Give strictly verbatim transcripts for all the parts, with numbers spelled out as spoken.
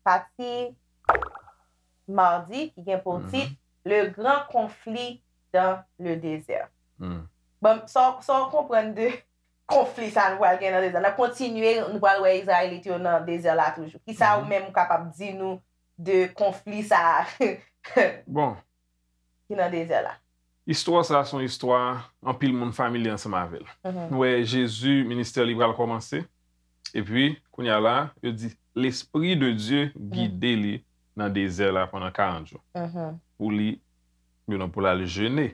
Pati madi ki gen pou tit Le grand conflit dans le désert. Bon, sa w- sa w konprann de konfli sa nou pral gen nan dezè? N ap kontinye, nou pral wè Izrayelit yo nan dezè la toujou. Kisa ou menm ou kapab di nou de konfli sa a Bon, ki nan dezè la? Istwa sa a se yon istwa anpil moun familye ansanm avè l. Nou wè Jezi, ministè li pral kòmanse. Epi, kounye a la, yo di, Lespri de Dye gide li nan dezè la pandan karant jou. Pou li, you know, pou l al jene.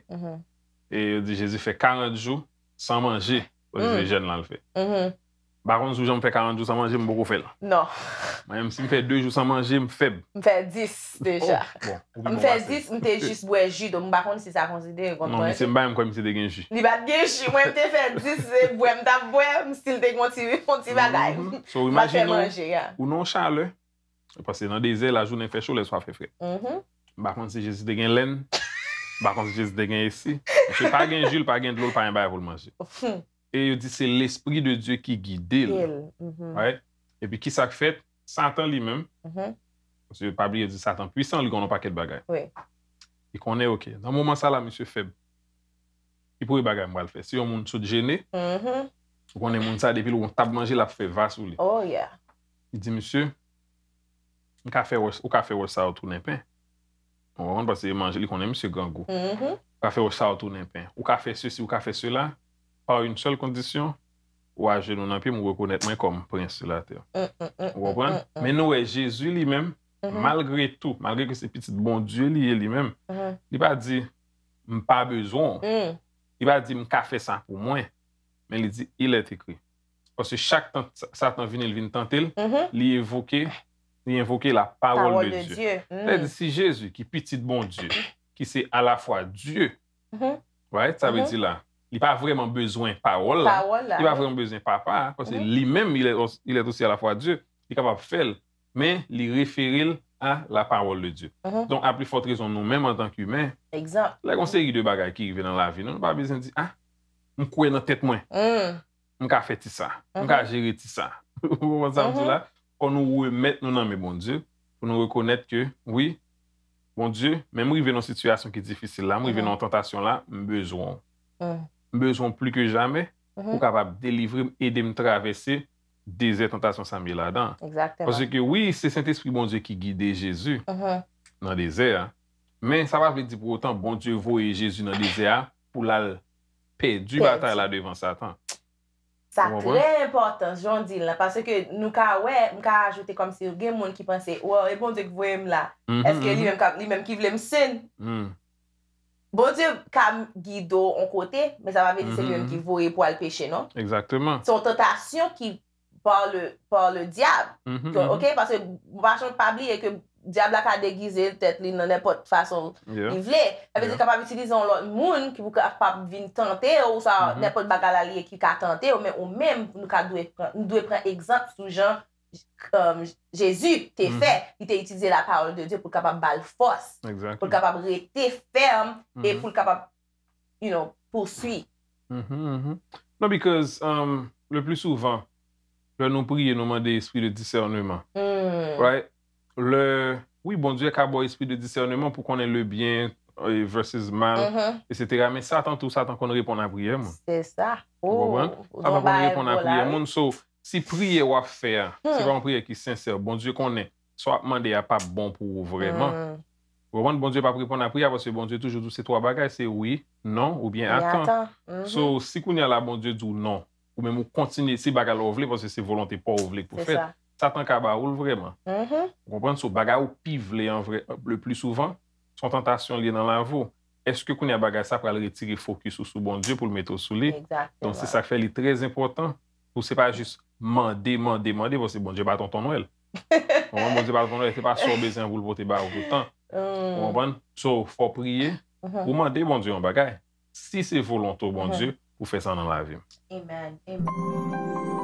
E yo di Jezi fè karant jou san manje. Paske se jèn la l fè. M pa konn si w janm fè karant jou san manje, m poko fè l. Non. Mwen menm, si m fè de jou san manje, m fèb. M fè dis deja. Oh, bon, ou pi M bon fè pase. dis, m te jis bwè ji, donk m pa konn si sa konsidere kòm Non, manje. Misye m pa menm kwè misye te gen ji. Li pa t gen ji, mwen m te fè dis, se bwè m t ap bwè, m still te gen yon ti, yon ti bagay. So, M pa t fè imajine w, manje, ya. Ou nan yon chalè, paske nan dezè, lajounen fè cho, lèswa fè frèt. M pa konn si Jezi te gen lèn, m pa konn si Jezi te gen esi. Misye pa gen ji, l pa gen dlo, l pa gen bagay pou l manje. E yo di se Lespri de Dye ki gide l. Right? Epi ki sa k fèt? Satan li menm, paske pa bliye di Satan pwisan, li konn yon pakèt bagay. Wi. Li konnen, oke, nan moman sa la, misye fèb. Ki premye bagay m pral fè? Si yon moun sot jene, ou konnen moun sa, depi l wè yon tab manje, l ap fè va sou li. Oh, yeah. Li di, Misye, m ka fè wòch, ou ka fè wòch sa yo tounen pen. Ou konprann? Paske manje, li konnen misye grangou. Ou ka fè wòch sa yo tounen pen. Ou ka fè sesi, ou ka fè sela, pa yon sèl kondisyon, ou ajenou nan pye m, ou rekonèt mwen kòm prens sou latè. Ou konprann? Men nou wè Jezi li menm, malgre tou, malgre ke se pitit Bondye li ye li menm, li pa di, m pa bezwen w. Li pa di, m ka fè sa pou mwen. Men li di, il est écrit. Paske chak tan Satan vini, l vin tante l, li evoke, li envoke la parole de Dieu. Sètadi si Jezi, ki pitit Bondye, ki se alafwa Dye, right? Sa vle di la, li pa vrèman bezwen pawòl la, li pa vrèman bezwen papa, paske li menm, il est, il est aussi à la fois Dieu, li kapab fè l, men li refere l a la parole de Dieu. Donk, a pli fòt rezon nou menm antanke imen, lè gen yon seri de bagay ki rive nan lavi nou, nou pa bezwen di, ah, m kwè nan tèt mwen. M ka fè ti sa. M ka jere ti sa. Ou konprann sa m di la? Fò nou remèt nou nan men Bondye, pou nou rekonèt ke, wi, Bondye, men m rive nan yon sitiyasyon ki difisil la, m rive nan yon tantasyon la, m bezwen w. M bezwen w pli ke jamè, pou w kapab delivre m, ede m travèse dezè tantasyon sa m ye ladan. Paske wi, se Sentespri Bondye ki gide Jezi nan dezè a, men sa pa vle di pou otan Bondye voye Jezi nan dezè a pou l al pèdi batay la devan Satan. Sa trè enpòtan, jan w di l lan, paske nou ka wè, m ka ajoute kòmsi gen moun ki panse, wow, e Bondye ki voye m la. Èske li menm k ap, li menm ki vle m sin? Bondye ka gide w yon kote, men sa pa vle di se li menm ki voye pou al peche, non. Egzakteman. Se yon tantasyon ki par le, par le diable. Ok? Paske pa, pa bliye ke dyab la ka degize tèt li nan nenpòt fason li vle. Sa vle di li kapab itilize yon lòt moun ki pou kapab vin tante w, oswa nenpòt bagay la li ye ki ka tante w, men ou menm, nou ka dwe pran, nou dwe pran egzanp sou jan um, Jezi te fè, li te itilize la parole de Dieu pou l kapab ba l fòs, pou l kapab rete fèm e pou l kapab, you know, pouswi. Non, because um, le pli souvan, lè nou priye, nou mande espri de disèneman. Right? Lè, wi, Bondye ka ba w espri de disèneman pou konnen le bien eh, versus mal, etsetera. Men Satan tou, Satan konn reponn a priyè moun. Se sa. Ou konprann? Satan konn reponn a priyè moun. So, si priyè w ap fè a, se pa yon priyè ki sensè, Bondye konnen sa w ap mande a p ap bon pou ou vrèman. Ou konprann? Bondye p ap reponn a priyè a paske Bondye toujou di w se twa bagay, se wi, non, oubyen atan. So, si kounye a la Bondye di w non, ou menm ou kontinye, se bagay la w vle paske se volonte pa w ou vle pou fèt, Satan ka ba ou l vrèman. Ou konprann? So, bagay ou pi vle an vrè, le pli souvan, se yon tantasyon l ye nan lavi w. Èske kounye a bagay sa pral retire fokis ou sou Bondye pou l mete w sou li? Donk, se sa k fè li trè enpòtan pou se pa jis mande, mande, mande, paske Bondye pa Tonton Nwèl. Ou konprann? Bondye pa Tonton Nwèl, se pa sa w bezwen pou l pote ba ou toutan. Ou konprann? So, fò w priye, ou mande Bondye yon bagay. Si se volonte w, Bondye, pou fè sa nan lavi m. Amen. Amen.